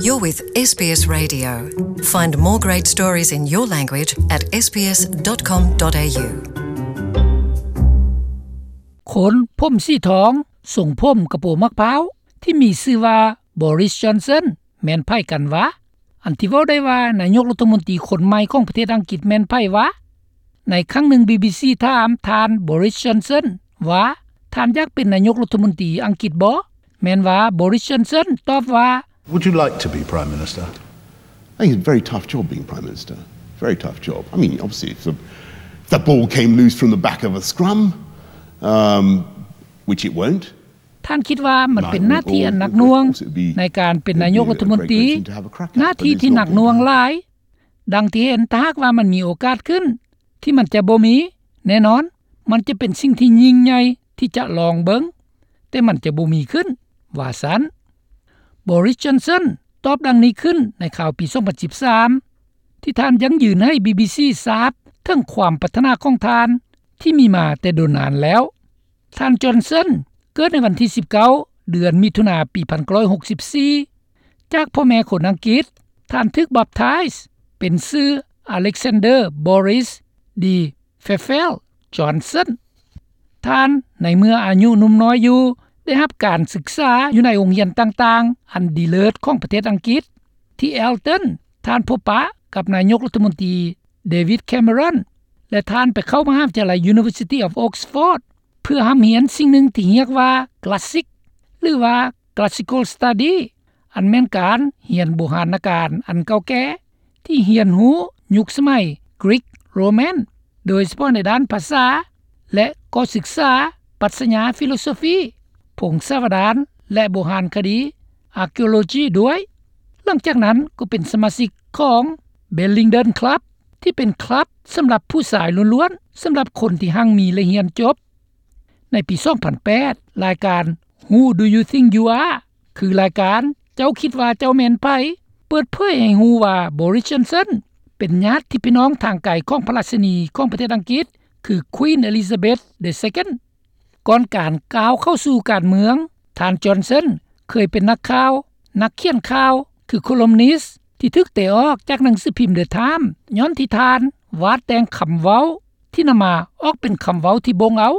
You're with SBS Radio. Find more great stories in your language at sbs.com.au. ຄົນຜົມສີທອງ ຊົງຜົມກະໂປມະພ້າວ ທີ່ມີຊື່ວ່າ Boris Johnson ແມ່ນໃຜກັນຫວາ? ອັນທີ່ເວົ້າໄດ້ວ່າ ນາຍົກລັດຖະມົນຕີຄົນໃໝ່ຂອງປະເທດອັງກິດແມ່ນໃຜຫວາ? ໃນຄັ້ງໜຶ່ງ BBC ຖາມທ່ານ Boris Johnson ວ່າ ທ່ານຢາກເປັນນາຍົກລັດຖະມົນຕີອັງກິດບໍ່? ແມ່ນວ່າ Boris Johnson ຕອບວ່າ Would you like to be Prime Minister? I think it's a very tough job being Prime Minister. Very tough job. I mean, obviously, if the, if the ball came loose from the back of a scrum, um, which it won't. ທ່ານຄິດວ່າມັນເປັນໜ້າທີ່ອັນໜັກໜ່ວງໃນການເປັນນາຍົກລັດຖະມົນຕີ, ໜ້າທີ່ທີ່ໜັກໜ່ວງຫຼາຍ. ດັ່ງທີ່ເຫັນ, ຖ້າຫາກວ່າມັນມີໂອກາດຂຶ້ນ ທີ່ມັນຈະບໍ່ມີ, ແນ່ນອນ, ມັນຈະເປັນສິ່ງທີ່ຍິ່ງໃຫຍ່ທີ່ຈະລອງເບິ່ງ, ແຕ່ມັນຈະບໍ່ມີຂຶ້ນ, ວ່າຊັ້ນ. Boris Johnson ຕອບດັ່ງນີ້ຂຶ້ນໃນຂ່າວປີສອງພັນສິບສາມ ທີ່ທ່ານຢັ້ງຢືນໃຫ້ BBC ຊາບເຖິງຄວາມປາດຖະໜາຂອງທ່ານທີ່ມີມາແຕ່ດົນນານແລ້ວ. ທ່ານ Johnson ເກີດໃນວັນທີສິບເກົ້າ ເດືອນມິຖຸນາ ປີພັນເກົ້າຮ້ອຍຫົກສິບສີ່ ຈາກພໍ່ແມ່ຄົນອັງກິດ. ທ່ານຖືກບັບທາຍເປັນຊື່ Alexander Boris de Pfeffel Johnson. ທ່ານ ໃນເມື່ອອາຍຸໜຸ່ມນ້ອຍຢູ່ ໄດ້ຮັບການສຶກສາຢູ່ໃນໂຮງຮຽນຕ່າງໆ ອັນດີເລີດຂອງປະເທດອັງກິດ. ທີ່ Eton ທ່ານພົບປະກັບນາຍົກລັດຖະມົນຕີ David Cameron ແລະ ທ່ານໄປເຂົ້າມະຫາວິທະຍາໄລ University of Oxford ເພື່ອຮ່ຳຮຽນສິ່ງໜຶ່ງທີ່ຮຽກວ່າ Classic ຫຼືວ່າ Classical Study ອັນແມ່ນການຮຽນບູຮານນະການອັນເກົ່າແກ່ ທີ່ຮຽນຮູ້ຍຸກສະໄໝ Greek Roman ໂດຍສະເພາະໃນດ້ານພາສາ ແລະ ກໍສຶກສາປັດຊະຍາ Philosophy, ພົງສາວະດານ ແລະ ໂບຮານຄະດີ Archaeology ດ້ວຍ. ຫຼັງຈາກນັ້ນກໍເປັນສະມາຊິກຂອງ Bellenden Club ທີ່ເປັນຄລັບສຳລັບຜູ້ຊາຍລ້ວນໆ, ສຳລັບຄົນທີ່ຮັ່ງມີ ແລະ ຮຽນຈົບ. ໃນປີສອງພັນແປດ ລາຍການ Who Do You Think You Are? ຄືລາຍການ ເຈົ້າຄິດວ່າເຈົ້າແມ່ນໃຜ? ເປີດເຜີຍໃຫ້ຮູ້ວ່າ Boris Johnson ເປັນຍາດທີ່ພີ່ນ້ອງທາງໄກຂອງພະລາຊິນີຂອງປະເທດອັງກິດ ຄື Queen Elizabeth the Second. ກ່ອນການກ້າວເຂົ້າສູ່ການເມືອງ, ທ່ານ Johnson ເຄີຍເປັນນັກຂ່າວ, ນັກຂຽນຂ່າວ, ຄື columnist ທີ່ຖືກເຕະອອກຈາກໜັງສືພິມ The Times ຍ້ອນທີ່ທ່ານວາດແຕ່ງຄຳເວົ້າ ທີ່ນຳມາອອກເປັນຄຳເວົ້າທີ່ບົ່ງເອົາ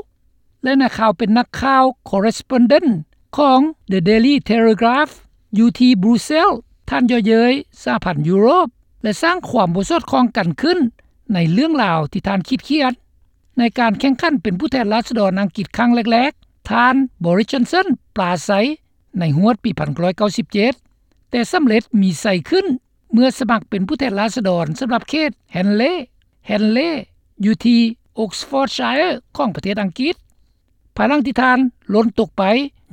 ແລະ ນັກຂ່າວເປັນນັກຂ່າວ correspondent ຂອງ The Daily Telegraph ຢູ່ທີ່ Brussels. ທ່ານເຍາະເຍີ້ຍສະຫະພັນຢູໂຣບ ແລະ ສ້າງຄວາມບໍ່ສອດຄ່ອງກັນຂຶ້ນໃນເລື່ອງລາວທີ່ທ່ານຄິດຂຽນ. ໃນການແຂ່ງຂັນເປັນຜູ້ແທນລາຊະດອນອັງກິດຄັ້ງແລກໆ, ທ່ານ Boris Johnson ປາໄສໃນຮວດປີພັນເກົ້າຮ້ອຍເກົ້າສິບເຈັດ ແຕ່ສຳເລັດມີໄຊຂຶ້ນ ເມື່ອສະໝັກເປັນຜູ້ແທນລາຊະດອນສຳລັບເຂດ Henley Henley ຢູ່ທີ່ Oxfordshire ຂອງປະເທດອັງກິດ. ພາຍຫຼັງທີ່ທ່ານຫຼົ່ນຕົກໄປ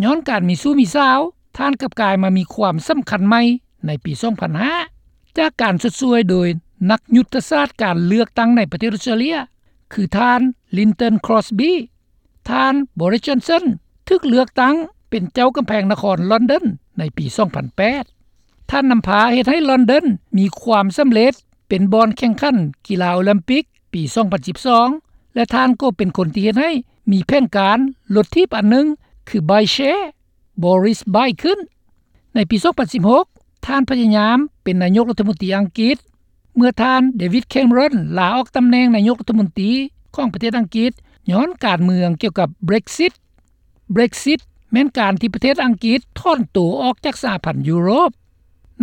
ຍ້ອນການມີຊູ້ມີສາວ, ທ່ານກັບກາຍມາມີຄວາມສຳຄັນໃໝ່ໃນປີສອງພັນຫ້າ ຈາກການຊົດຊ່ວຍໂດຍນັກຍຸດທະສາດການເລືອກຕັ້ງໃນປະເທດອອສເຕຣເລັຍ ຄືທ່ານ Lynton Crosby. ທ່ານ Boris Johnson ຖືກເລືອກຕັ້ງເປັນເຈົ້າກຳແພງນະຄອນລອນດອນໃນປີສອງພັນແປດ. ທ່ານນຳພາເຮັດໃຫ້ລອນດອນມີຄວາມສຳເລັດເປັນບ່ອນແຂ່ງຂັນກິລາໂອລິມປິກປີສອງພັນສິບສອງ ແລະ ທ່ານກໍເປັນຄົນທີ່ເຮັດໃຫ້ມີແຜນການລົດຖີບອັນໜຶ່ງ ຄື Bike Share Boris Bike ຂຶ້ນ. ໃນປີສອງພັນສິບຫົກ ທ່ານພະຍາຍາມເປັນນາຍົກລັດຖະມົນຕີອັງກິດ ເມື່ອທ່ານ David Cameron ລາອອກຕຳແໜ່ງນາຍົກລັດຖະມົນຕີຂອງປະເທດອັງກິດ ຍ້ອນການເມືອງກ່ຽວກັບ Brexit. Brexit ແມ່ນການທີ່ປະເທດອັງກິດຖອນໂຕອອກຈາກສະຫະພັນຢູໂຣບ.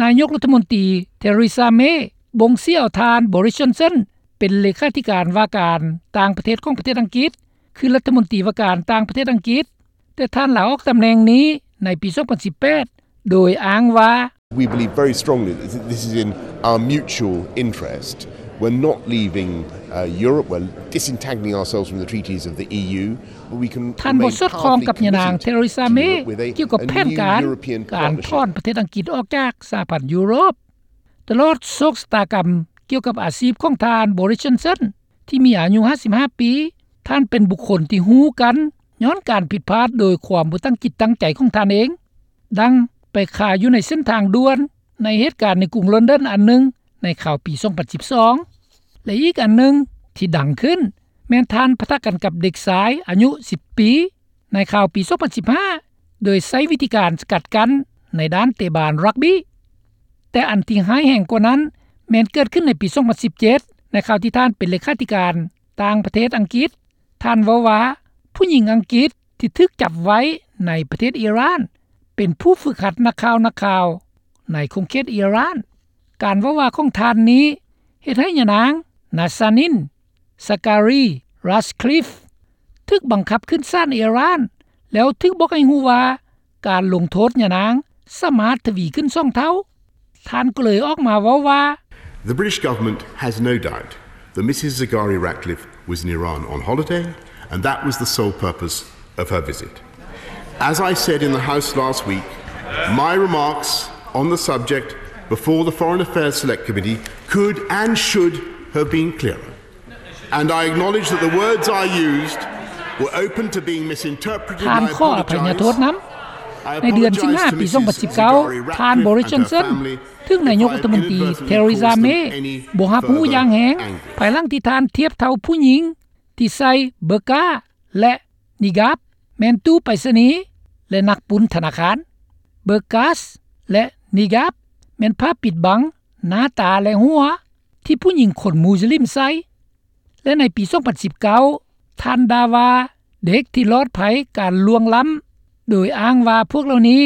ນາຍົກລັດຖະມົນຕີ Theresa May ບົ່ງເສຍເອົາທ່ານ Boris Johnson ເປັນເລຂາທິການວ່າການຕ່າງປະເທດຂອງປະເທດອັງກິດ ຄືລັດຖະມົນຕີວ່າການຕ່າງປະເທດອັງກິດ, ແຕ່ທ່ານລາອອກຕຳແໜ່ງນີ້ໃນປີສອງພັນສິບແປດ ໂດຍອ້າງວ່າ We believe very strongly that this is in our mutual interest. We're not leaving, uh, Europe. We're disentangling ourselves from the treaties of the E U. But we can ທ່ານບໍ່ສອດຄ່ອງກັບຍານາງ Theresa May ກ່ຽວກັບແຜນການການຖອນປະເທດອັງກິດອອກຈາກສະຫະພັນຢູໂຣບ. ຕະຫຼອດໂຊກຊະຕາກຳກ່ຽວກັບອາຊີບຂອງທ່ານ Boris Johnson ທີ່ມີອາຍຸຫ້າສິບຫ້າປີ, ທ່ານເປັນບຸກຄົນທີ່ຮູ້ກັນຍ້ອນການຜິດພາດໂດຍຄວາມບໍ່ຕັ້ງຈິດຕັ້ງໃຈຂອງທ່ານເອງ, ດັ່ງໄປຄາຢູ່ໃນເສັ້ນທາງດ່ວນໃນເຫດການໃນກຸງລອນດອນອັນໜຶ່ງໃນຄາວປີສອງພັນສິບສອງ ແລະ ອີກອັນໜຶ່ງທີ່ດັງຂຶ້ນແມ່ນທ່ານປະທະກັນກັບເດັກຊາຍອາຍຸສິບປີ ໃນຄາວປີສອງພັນສິບຫ້າ ໂດຍໃຊ້ວິທີການສະກັດກັ້ນໃນດ້ານເຕະບານຣັກບີ້. ແຕ່ອັນທີ່ຮ້າຍແຮງກວ່ານັ້ນ ແມ່ນເກີດຂຶ້ນໃນປີສອງພັນສິບເຈັດ ໃນຄາວທີ່ທ່ານເປັນເລຂາທິການຕ່າງປະເທດອັງກິດ. ທ່ານເວົ້າວ່າ ຜູ້ຍິງອັງກິດທີ່ຖືກຈັບໄວ້ໃນປະເທດອີຣານ ເປັນຜູ້ຝຶກຫັດນັກຂ່າວ ນັກຂ່າວໃນຂົງເຂດອີຣານ. ການເວົ້າວ່າຂອງທ່ານນີ້ ເຮັດໃຫ້ຍານາງ ນາຊານິນ ສະກາຣີ ຣັດຄລິຟ ຖືກບັງຄັບຂຶ້ນສານອີຣານ ແລ້ວຖືກບອກໃຫ້ຮູ້ວ່າ ການລົງໂທດຍານາງສາມາດທະວີຂຶ້ນສອງເທົ່າ. ທ່ານກໍເລີຍອອກມາເວົ້າວ່າ The British government has no doubt that Mrs Zaghari Ratcliffe was in Iran on holiday and that was the sole purpose of her visit. As I said in the House last week, my remarks on the subject before the Foreign Affairs Select Committee could and should have been clearer. And I acknowledge that the words I used were open to being misinterpreted. ທ່ານຂໍອະໄພຍະໂທດນຳ. ໃນເດືອນສິງຫາປີສອງພັນສິບເກົ້າ ທ່ານ Boris Johnson ຖືກນາຍົກລັດຖະມົນຕີ Theresa May ບໍ່ຮັບຮູ້ຢ່າງແຮງ ພາຍຫຼັງທີ່ທ່ານທຽບເທົ່າຜູ້ຍິງທີ່ໃສ່ເບີກາ ແລະ ນິກາບ ແມ່ນຕູ້ໄປສະນີ ແລະ ນັກປຸ້ນທະນາຄານ. ເບີກາ ແລະ ນິກາບ ແມ່ນຜ້າປິດບັງໜ້າຕາ ແລະ ຫົວ ທີ່ຜູ້ຍິງຄົນມຸສລິມໃສ່ ແລະ ໃນປີສອງພັນສິບເກົ້າ ທ່ານດ່າວ່າເດັກທີ່ລອດໄພການລ່ວງລ້ຳ ໂດຍອ້າງວ່າພວກເຫຼົ່ານີ້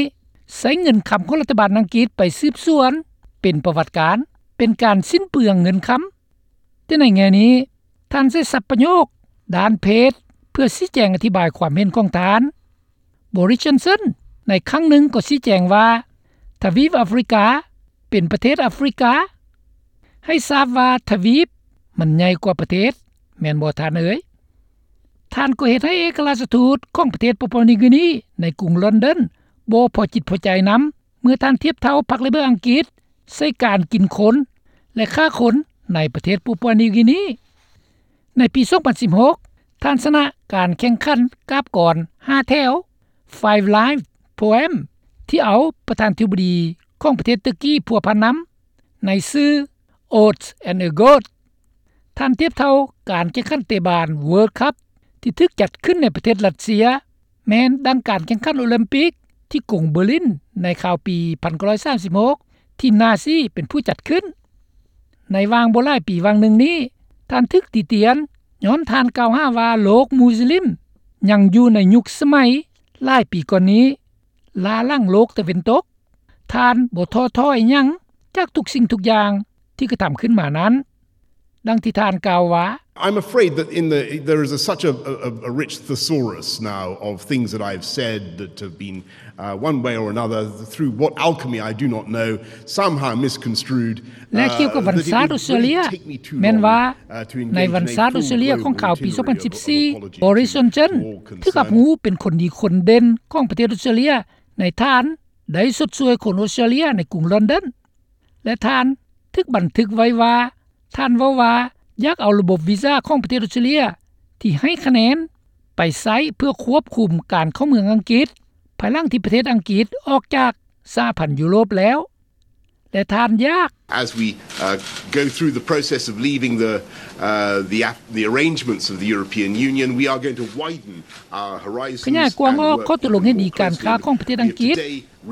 ໃຊ້ເງິນຄຳຂອງລັດຖະບານອັງກິດໄປສືບສວນ ເປັນປະຫວັດການ ເປັນການສິ້ນເປືອງເງິນຄຳ. ແຕ່ໃນແງ່ນີ້ ທ່ານໃຊ້ສັບປະໂຫຍກດ້ານເພດ ເພື່ອຊີ້ແຈງອະທິບາຍຄວາມເຫັນຂອງທ່ານ. Boris Johnson ໃນຄັ້ງໜຶ່ງກໍຊີ້ແຈງວ່າ ທະວີບອາຟຣິກາ ເປັນປະເທດອາຟຣິກາ, ໃຫ້ຊາບວ່າທະວີບມັນໃຫຍ່ກວ່າປະເທດ, ແມ່ນບໍ່ທ່ານເອີຍ? ທ່ານກໍເຮັດໃຫ້ເອກະລາຊະທູດຂອງປະເທດປາປົວນິວກີນີໃນກຸງລອນດອນບໍ່ພໍຈິດພໍໃຈນຳ ເມື່ອທ່ານທຽບເທົ່າພັກເລເບີອັງກິດໃສ່ການກິນຄົນ ແລະ ຂ້າຄົນໃນປະເທດປາປົວນິວກີນີ. ໃນປີສອງພັນສິບຫົກ ທ່ານຊະນະການແຂ່ງຂັນກາບກອນຫ້າແຖວ Five Line Poem ທີ່ເອົາປະທານທິບໍດີຂອງປະເທດເຕີກີພົວພັນນຳ ໃນຊື່ Oaths and a Goat. ທ່ານທຽບເທົ່າການແຂ່ງຂັນເຕະບານ World Cup ທີ່ຖືກຈັດຂຶ້ນໃນປະເທດຣັດເຊຍ ແມ່ນດັ່ງການແຂ່ງຂັນໂອລິມປິກທີ່ກຸງເບີລິນໃນຄາວປີພັນເກົ້າຮ້ອຍສາມສິບຫົກ ທີ່ນາຊີເປັນຜູ້ຈັດຂຶ້ນ. ໃນຫວ່າງບໍ່ຫຼາຍປີຫວ່າງໜຶ່ງນີ້ ທ່ານຖືກຕິຕຽນຍ້ອນທ່ານກ່າວຫາວ່າໂລກມຸສລິມຍັງຢູ່ໃນຍຸກສະໄໝຫຼາຍປີກ່ອນນີ້ ລ້າຫຼັງໂລກຕາເວັນຕົກ. ທ່ານບໍ່ທໍ້ຖອຍຫຍັງຈາກທຸກສິ່ງທຸກຢ່າງທີ່ກະທຳຂຶ້ນມານັ້ນ. ດັ່ງທີ່ທ່ານກ່າວວ່າ I'm afraid that in the, there is a, such a, a, a rich thesaurus now of things that I've said that have been, uh, one way or another, through what alchemy I do not know, somehow misconstrued. ແລະ ກ່ຽວກັບວັນຊາດອອສເຕຣເລຍ ແມ່ນວ່າໃນວັນຊາດອອສເຕຣເລຍຂອງຂ່າວປີສອງພັນສິບສີ່ Boris Johnson ຖືກຮັບຮູ້ເປັນຄົນດີຄົນເດັ່ນຂອງປະເທດອອສເຕຣເລຍ ໃນທ່ານໄດ້ຊົດຊ່ວຍຄົນອອສເຕຣເລຍໃນກຸງລອນດອນ ແລະ ທ່ານຖືກບັນທຶກໄວ້ວ່າ ທ່ານເວົ້າວ່າຢາກເອົາລະບົບວີຊາຂອງປະເທດອອສເຕຣເລຍທີ່ໃຫ້ຄະແນນໄປໃຊ້ເພື່ອຄວບຄຸມການເຂົ້າເມືອງອັງກິດ ພາຍຫຼັງທີ່ປະເທດອັງກິດອອກຈາກສະຫະພັນຢູໂຣບແລ້ວ ແລະ ທ່ານຢາກ As we, uh, go through the process of leaving the, uh, the, the arrangements of the European Union, we are going to widen our horizons ຂະຫຍາຍກວ້າງອອກຂໍ້ຕົກລົງເຫັນດີການຄ້າຂອງປະເທດອັງກິດ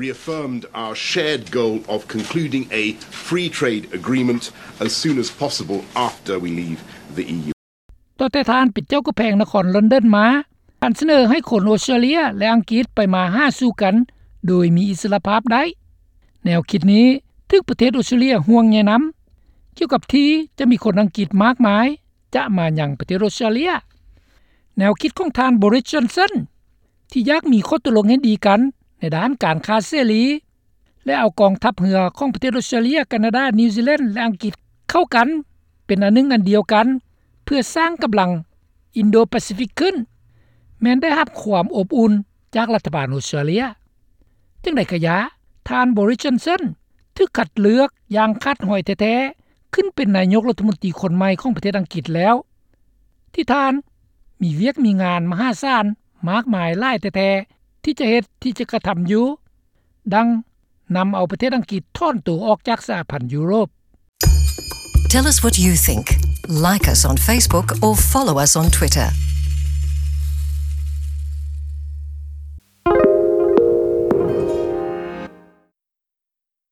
reaffirmed our shared goal of concluding a free trade agreement as soon as possible after we leave the EU. ຕັ້ງແຕ່ທ່ານເປັນເຈົ້າກຳແພງນະຄອນລອນດອນມາ ທ່ານສະເໜີໃຫ້ຄົນອອສເຕຣເລຍ ແລະ ອັງກິດໄປມາຫາສູ່ກັນໂດຍມີອິດສະຫຼະພາບໄດ້. ແນວຄິດນີ້ຖືກປະເທດອອສເຕຣເລຍຫ່ວງໃຍນຳ ກ່ຽວກັບທີ່ຈະມີຄົນອັງກິດມາກມາຍຈະມາຍັງປະເທດອອສເຕຣເລຍ. ແນວຄິດຂອງທ່ານ Boris Johnson ທີ່ຢາກມີຂໍ້ຕົກລົງເຫັນດີກັນໃນດ້ານການຄ້າເສລີ ແລະ ເອົາກອງທັບເຮືອຂອງປະເທດອອສເຕຣເລຍ, ການາດາ, ນິວຊີແລນ ແລະ ອັງກິດເຂົ້າກັນເປັນອັນໜຶ່ງອັນດຽວກັນ ເພື່ອສ້າງກຳລັງອິນໂດປາຊີຟິກຂຶ້ນ ແມ່ນໄດ້ຮັບຄວາມອົບອຸ່ນຈາກລັດຖະບານອອສເຕຣເລຍ. ຈັ່ງໃດກະຢ່າ, ທ່ານ Boris Johnson ຖືກຄັດເລືອກຢ່າງຂາດຫອຍແທ້ໆ ຂຶ້ນເປັນນາຍົກລັດຖະມົນຕີຄົນໃໝ່ຂອງປະເທດອັງກິດແລ້ວ ທີ່ທ່ານມີວຽກມີງານມະຫາສານມາກມາຍຫຼາຍແທ້ໆ ທີ່ຈະເຮັດ ທີ່ຈະກະທຳຢູ່ ດັ່ງນຳເອົາປະເທດອັງກິດຖອນໂຕອອກຈາກສະຫະພັນຢູໂຣບ. Tell us what you think. Like us on Facebook or follow us on Twitter.